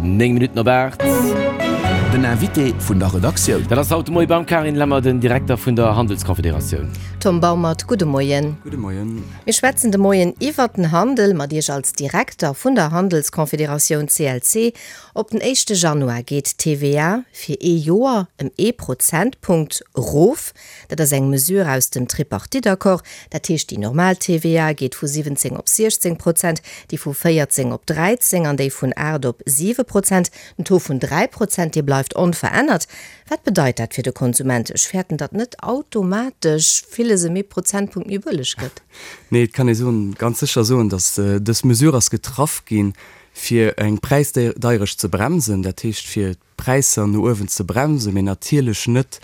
9 Minutten op 8. Den Invité vun der Redaktioun. Dat ass haut de Moie beim Carine Lemmer, den Direkter vun der Handelskonfederatioun. Tom Baumert, gudde Moien. Gudde Moien. Mir schwätzen de Moien iwwert den Handel mat Iech als Direkter vun der Handelskonfederatioun CLC. Op den éischte Januar geet d'TVA fir ee Joer ëm ee Prozentpunkt erof. Dat ass eng Mesure aus dem Tripartite-Accord. Dat heescht, déi normal TVA geet vu 17 op 16 Prozent, déi vu 14 op 13 an déi vun 8 op 7 Prozent. Den Taux vun 3 Prozent, dee bleift onverännert. Wat bedeit dat fir de Konsument? Ech fäerten, datt net automatesch villes ëm ee Prozentpunkt méi bëlleg gëtt. Nee, et kann ee soen, ganz sécher soen, datt dës Mesure ass getraff ginn, fir eng Präisdeierecht ze bremsen, dat heescht fir d'Präisser no uewen ze bremsen, mee natierlech net,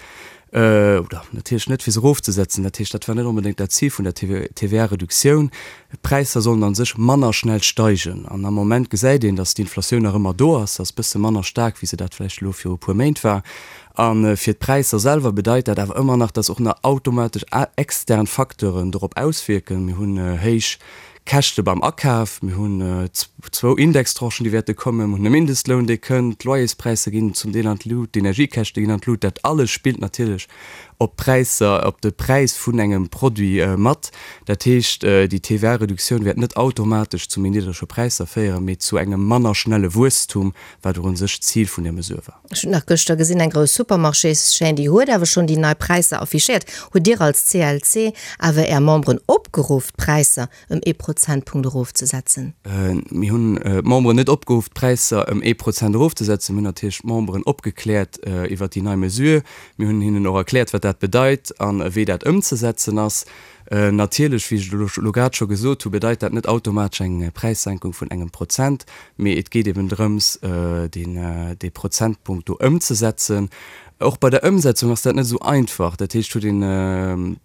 oder natierlech net fir se erofzesetzen. Dat heescht, dat war net onbedéngt dat Zil vun der TVA-Reduktioun. D'Präisser sollen a sech manner schnell steigen. An am Moment gesäit een, datt d'Inflatioun nach ëmmer do ass, se ass e bësse manner staark, wéi se dat vläicht elo viru e puer Méint war. A fir d'Präisser selwer bedeit dat awer ëmmer nach, datt och nach automatesch extern Facteuren dorop auswierken. Mir hunn héich Käschte beim Akaf, mir hunn zwou Indextranchen, déi wäerte kommen, mir hunn e Mindestloun, dee kënnt, d'Loyerspräisser ginn zum Deel an d'Lut, d'Energiekäschte ginn an d'Lut. Dat alles spillt natierlech op d'Präisser, op de Präis vun engem Produit mat. Dat heescht, déi TVA-Reduktioun wäert net automatesch zu méi niddrege Präisser féieren, mee zu engem manner schnelle Wuesstum, wat och u sech d'Zil vun där Mesure war. Ech hunn nach gëschter gesinn, eng grouss Supermarchéschaîne, déi huet awer schonn déi nei Präisser affichéiert. Hutt Dir als CLC awer Är Memberen opgeruff, d'Präisser ëm ee Prozentpunkt erofzesetzen? Mir hunn d'Memberen net opgeruff, d'Präisser ëm ee Prozent erofzesetzen. Mir hunn natierlech d'Memberen opgekläert iwwert déi nei Mesure. Mir hunn hinnen och erkläert, wat dat bedeit an wéi dat ëmzesetzen ass. Natierlech, wéi ech et elo grad scho gesot hu, bedeit dat net automatesch eng Präissenkung vun engem Prozent, mee et geet eben drëms, deen, dee Prozentpunkt do ëmzesetzen. Och bei der Ëmsetzung ass dat net esou einfach. Dat heescht, huet een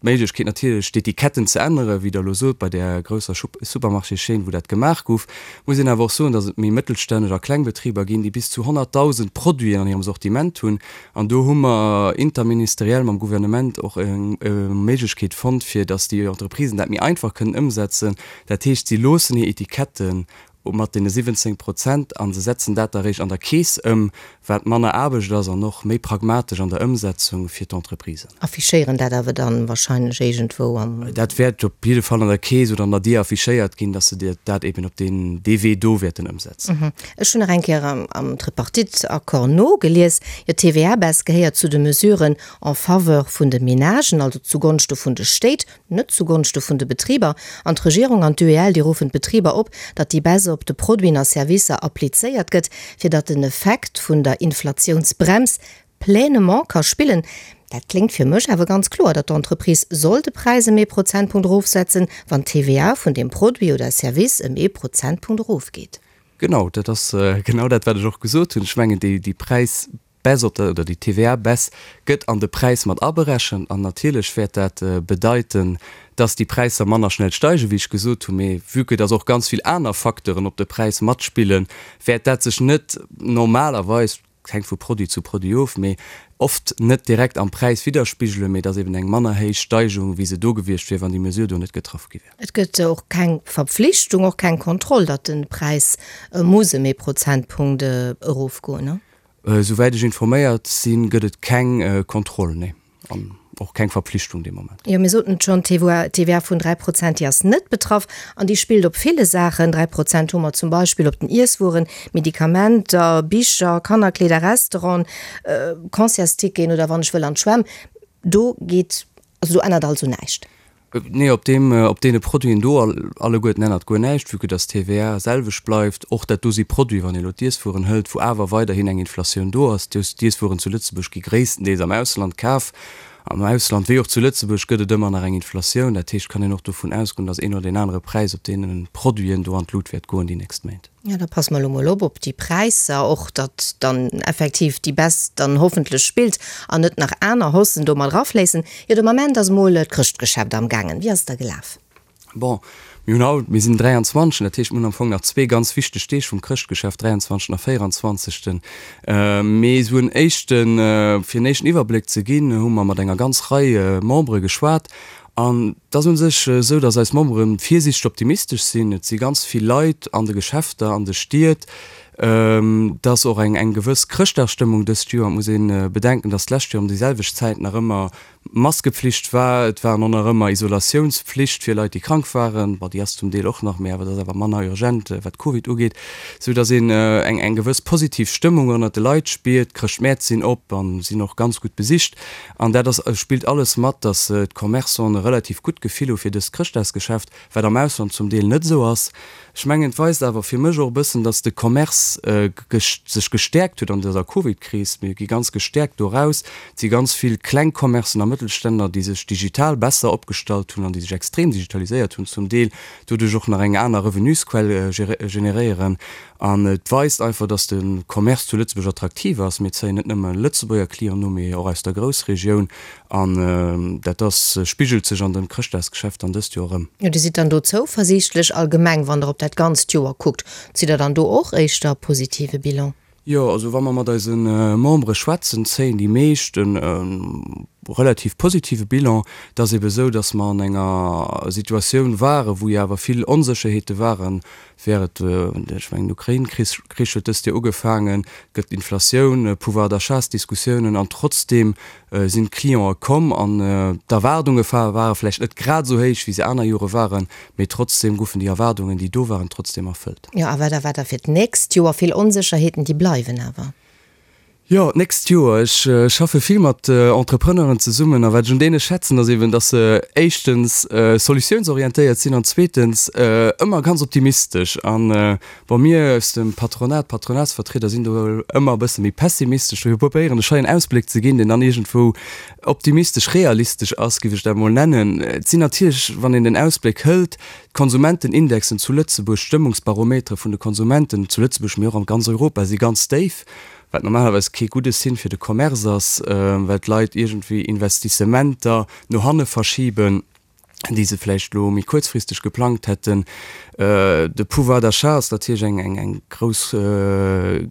d'Méiglechkeet natierlech d'Etiketten ze änneren, wéi Der elo sot, bei där grousser Supermarchéschaîne, wou dat gemaach gouf. Muss een awer och soen, datt et méi mëttelstänneg a kleng Betriber ginn, déi bis zu 100.000 Produiten an hirem Sortiment hunn, An do hu mer interministeriell mam Gouvernement och eng Méiglechkeet fonnt, fir datt déi Entreprisen dat méi einfach kënnen ëmsetzen. Dat heescht, si loossen hir Etiketten mat deene 17 Prozent a se setzen dat da réischt an der Keess ëm, wat manner Aarbecht ass an och méi pragmatesch an der Ëmsetzung fir d'Entreprisen. Affichéieren dat awer dann wahrscheinlech iergendwou am. Dat wäert op jidde Fall an der Keess oder an der Dier affichéiert ginn, datt se dat eben op deen, dee Wee do wäerten ëmsetzen. Ech hunn nach eng Kéier am Tripartite-Accord nogelies, jo, d'TVA-Baisse gehéiert zu de Mesuren en faveur vun de Menagen, also zugonschte vun de Stéit, net zugonschte vun de Betriber. An d'Regierung an d'UEL, déi ruffen d'Betriber op, datt déi Baisse op de Produiten a Servicer applizéiert gëtt, fir datt den Effekt vun der Inflatiounsbrems pleinement ka spillen. Dat kléngt fir mech awer ganz kloer, datt d'Entreprise soll de Präis ëm ee Prozentpunkt erofsetzen, wann d'TVA vun deem Produit oder Service ëm ee Prozentpunkt erofgeet. Genau, dat ass genau dat, wat ech och gesot hunn. Ech mengen, déi, déi Präisbaisse op der, oder déi TVA-Baisse gëtt an de Präis mat aberechent. An natierlech wäert dat bedeiten, dass déi Präisser manner schnell steigen, wéi ech gesot hunn. Mee vue que dass och ganz vill aner Facteuren op de Präis matspillen, wäert dat sech net normalerweis, Et hänkt vu Produit zu Produit of, mee oft net direkt am Präis widderspigelen, mee et ass eben eng manner héich Steigerung, wéi se do gewiescht wier, wann déi Mesure do net getraff gi wär. Et gëtt och keng Verpflichtung, och keng Kontroll, datt de Präis muss ëm ee Prozentpunkt erofgoen, ne? Souwäit ech informéiert sinn, gëtt et keng Kontroll, nee. An och keng Verpflichtung dee Moment. Jo, mir soten et schonn, d'TVA vun 3 Prozent, déi ass net betraff an déi spillt op ville Saachen. 3 Prozent hu mer zum Beispill op den Iesswueren, Medikamenter, Bicher, Kannerkleeder, Restauranten, Concertsticketen oder wann ech wëll an d'Schwämm. Do geet, also do ännert also näischt. Nee, op deem, op deene Produiten do alleguerten ännert guer näischt, vue que dass d'TVA selwecht bleift. Och dat do si Produiten, wann ee elo d'Iesswueren hëlt, wou awer weiderhin eng Inflatioun do ass. D'Iesswueren zu Lëtzebuerg gi gréisstendeels am Ausland kaf. Am Ausland wéi och zu Lëtzebuerg gëtt et ëmmer nach eng Inflatioun. Dat heescht, kann een och dovun ausgoen, dass een oder deen anere Präis op deene Produiten do an d'Lut wäert goen déi nächst Méint. Jo, da passe mer elo mol op op déi Präisser och, datt dann effektiv déi Baisse dann hoffentlech spillt an net nach aner Haussen do mat erafléissen. Jo, de Moment ass mol d'Chrëschtgeschäft amgaangen. Wéi ass et da gelaf? Bon, mir hunn haut, mir sinn den 23. Dat heescht, mir hunn am Fong nach zwee ganz wichteg Deeg vum Chrëschtgeschäft, 23. a 24. Mee esou en éischten, fir en éischten Iwwerbléck ze ginn, hu mer mat enger ganz Rei Membere geschwat An et ass u sech esou, datt eis Membere virsiichteg optimistesch sinn. Et si ganz vill Leit an de Geschäfter, an de Stied. Et ass och eng eng gewëss Chrëschtdagsstëmmung dëst Joer. Et muss ee bedenken, datt d'lescht Joer ëm déi selwecht Zäit nach ëmmer Maskepflicht war. Et war och nach ëmmer Isolatiounspflicht fir Leit, déi krank waren. Bon, déi ass zum Deel och nach, mee awer dat ass awer manner urgent, wat Covid ugeet. Sou datt een eng eng gewëss positiv Stëmmung ënnert de Leit spiert. D'Chrëschtmäert sinn op a sinn och ganz gutt besicht. An dat ass spillt alles mat, datt d'Commerçanten e relativ gutt Gefill hu fir dëst Chrëschtdagsgeschäft. wat am Ausland zum Deel net esou ass. Ech mengen, et weist awer fir mech och e bëssen, datt de Commerce sech gestäerkt huet an dëser Covid-Kris. Mir gi ganz gestäerkt do eraus. Et si ganz vill kleng Commercen a Mëttelständler, déi sech digital besser opgestallt hunn an déi sech extrem digitaliséiert hunn zum Deel, doduerch och nach eng aner Revenusquell generéieren. An et weist einfach, datt de Commerce zu Lëtzebuerg attraktiv ass. Mir zéien net nëmme Lëtzebuerger Clienten u, mee och aus der Groussregioun. An dat ass, spigelt sech an dem Chrëschtdagsgeschäft dann dëst Joer erëm. Jo, Dir sidd dann do zouversiichtlech allgemeng, wann Der op dat ganzt Joer kuckt. Zitt Der dann do och éischter positive Bilan? Jo, also wa mer mat eise Membere schwätzen, zéien déi meescht e relativ positive Bilan. Et ass ebe sou, datt mer an enger Situatioun waren, wou jo awer vill Onsécherheete waren, Wär et, ech mengen den Ukrain-Krich huet dëst Joer ugefaangen, et gëtt Inflatioun, Pouvoir d'achat-Diskussiounen an trotzdeem sinn d'Clientë komm an d'Erwaardunge ware vläicht net grad esou héich, wéi se aner Jore waren, mee trotzdeem goufen déi Erwaardungen, déi do waren, trotzdeem erfëllt. Jo, a wat erwaart Der fir d'nächst Joer? Vill Onsécherheeten, déi bleiwen awer. Jo, d'nächst Joer. Ech schaffe vill mat Entrepreneuren zesummen a wat ech un deene schätzen, ass eben, dass se éischtens solutiounsorientéiert sinn an zweetens ëmmer ganz optimistesch. An bon, mir aus dem Patronat, d'Patronatsvertrieder sinn do ëmmer e bësse méi pessimistesch. Dofir probéieren ech hei en Ausbléck ze ginn, deen dann iergendwou optimistesch, realistesch ass, géif ech dat emol nennen. Et sinn natierlech, wann een den Ausbléck hëlt, d'Konsumentenindexen zu Lëtzebuerg, d'Stëmmungsbarometere vun de Konsumenten zu Lëtzebuerg, mee och an ganz Europa, si ganz déif. wat normalerweis kee gudde Signe fir de Commerce ass, well d'Leit iergendwéi Investissementer no hanne verschiben, déi se vläicht elo méi kuerzfristeg geplangt hätten. De Pouvoir d'achat ass natierlech eng eng grouss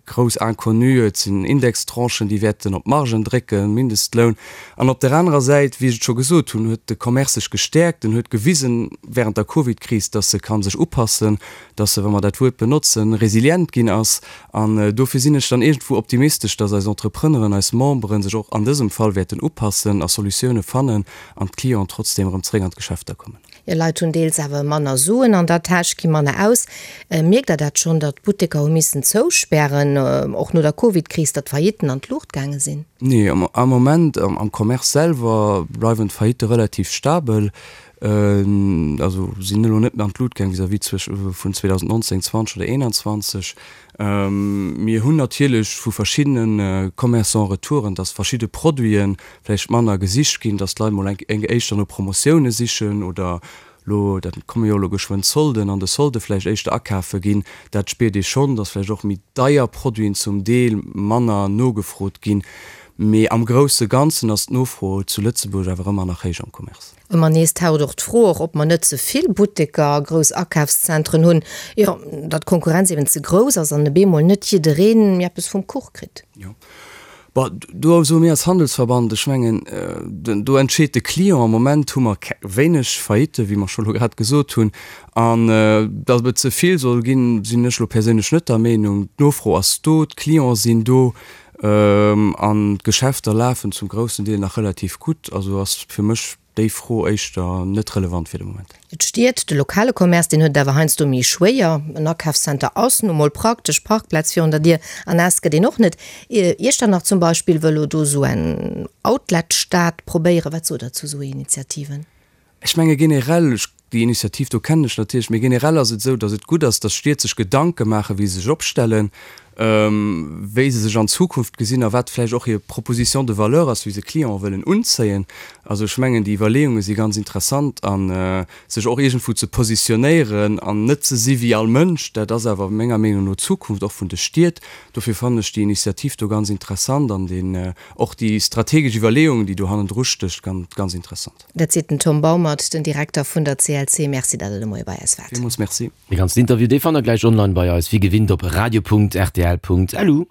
grouss Inconnue. Et sinn Indextranchen, déi wäerten op d'Margen drécken, Mindestloun. An op där anerer Säit, wéi ech et scho gesot hunn, huet de Commerce sech gestäerkt. En huet gewisen während der Covidkris, dass e ka sech upassen, dass e, wa mer dat Wuert benotzen, resilient ginn ass. An dofir sinn ech dann iergendwou optimistesch, dass eis Entrepreneuren, eis Memberen sech och an dësem Fall wäerten upassen a Solutioune fannen an d'Clienten trotzdeem erëm zeréck an d'Geschäfter kommen. Jo, Leit hunn deels awer manner Suen an der Täsch, gi manner aus. Mierkt Der dat schonn, datt d'Butteker hu missen zouspären, och no der Covid-Kris, datt d'Faillitten an d'Luucht gaange sinn? Nee, am Moment am Commerce selwer bleiwen d'Faillitte relativ stabel. Also sinn elo net méi an d'Lut gaang vis-à-vis vun 2019, 20 oder 21. Mir hunn natierlech vu verschiddene Commerçants Retouren, dass verschidde Produite vläicht manner gesicht ginn, dass d'Leit mol eng éischter no Promotioune sichen oder elo, dat komme jo elo geschwënn d'Solden, an de Solde vläicht éischter akafe ginn. Dat spiert ee schonn, dass vläicht och méi deier Produiten zum Deel manner nogefrot ginn. Mee am grousse Ganzen ass d'Nofro zu Lëtzebuerg awer ëmmer nach héich am Commerce. Ëmmer nees taucht och d'Fro och, ob mer net ze vill Butteker a grouss Akafszentren hunn, jo, datt d'Konkurrenz eben ze grouss ass an e bemol net jiddereen méi eppes vum Kuch kritt. Jo, bon, do soe mir als Handelsverband, ech mengen, do entscheet de Client. Am Moment hu mer wéineg Faillitten, wéi mer scho lo grad gesot hunn. An datt et ze vill soll ginn, sinn ech lo perséinlech net der Meenung. D'Nofro ass do, d'Clienten sinn do an d'Geschäfter lafen zum groussen Deel nach relativ gutt. Also ass fir mech déi Fro éischter net relevant fir de Moment. D'Stied, de lokale Commerce, deen huet et awer heiansdo méi schwéier. En Akafscenter ass nu mol praktesch, Parkplaz virun der Dier an naass gëtt een och net. Iechternach zum Beispill wëll elo do esou eng Outlet-Stad probéieren. Wat sot Der zu esou Initiativen? Ech menge generell, ech, déi Initiativ do kennen ech natierlech, mee generell ass et esou, datt et gutt ass, datt Stied sech Gedanke maachen, wéi se sech opstellen, wéi se sech an Zukunft gesinn a wat vläicht och hir Proposition de valeur ass, wéi se Clienten wëllen unzéien. Also ech mengen, déi Iwwerleeunge si ganz interessant a sech och iergendwou ze positionéieren an net ze si wéi all Mënsch, dat ass awer menger Meenung no d'Zukunft och vun de Stied. Dofir fannen ech déi Initiativ do ganz interessant an deen, och déi strategesch Iwwerleeung, déi do hannendru stécht, ganz interessant. Dat seet den Tom Baumert, den Direkter vun der CLC. Merci, datt Der de Moie bei eis waart. Villmools Merci. Dee ganzen Interview, dee fannt der gläich online bei eis, wéi gewinnt op radio.rtl.lu.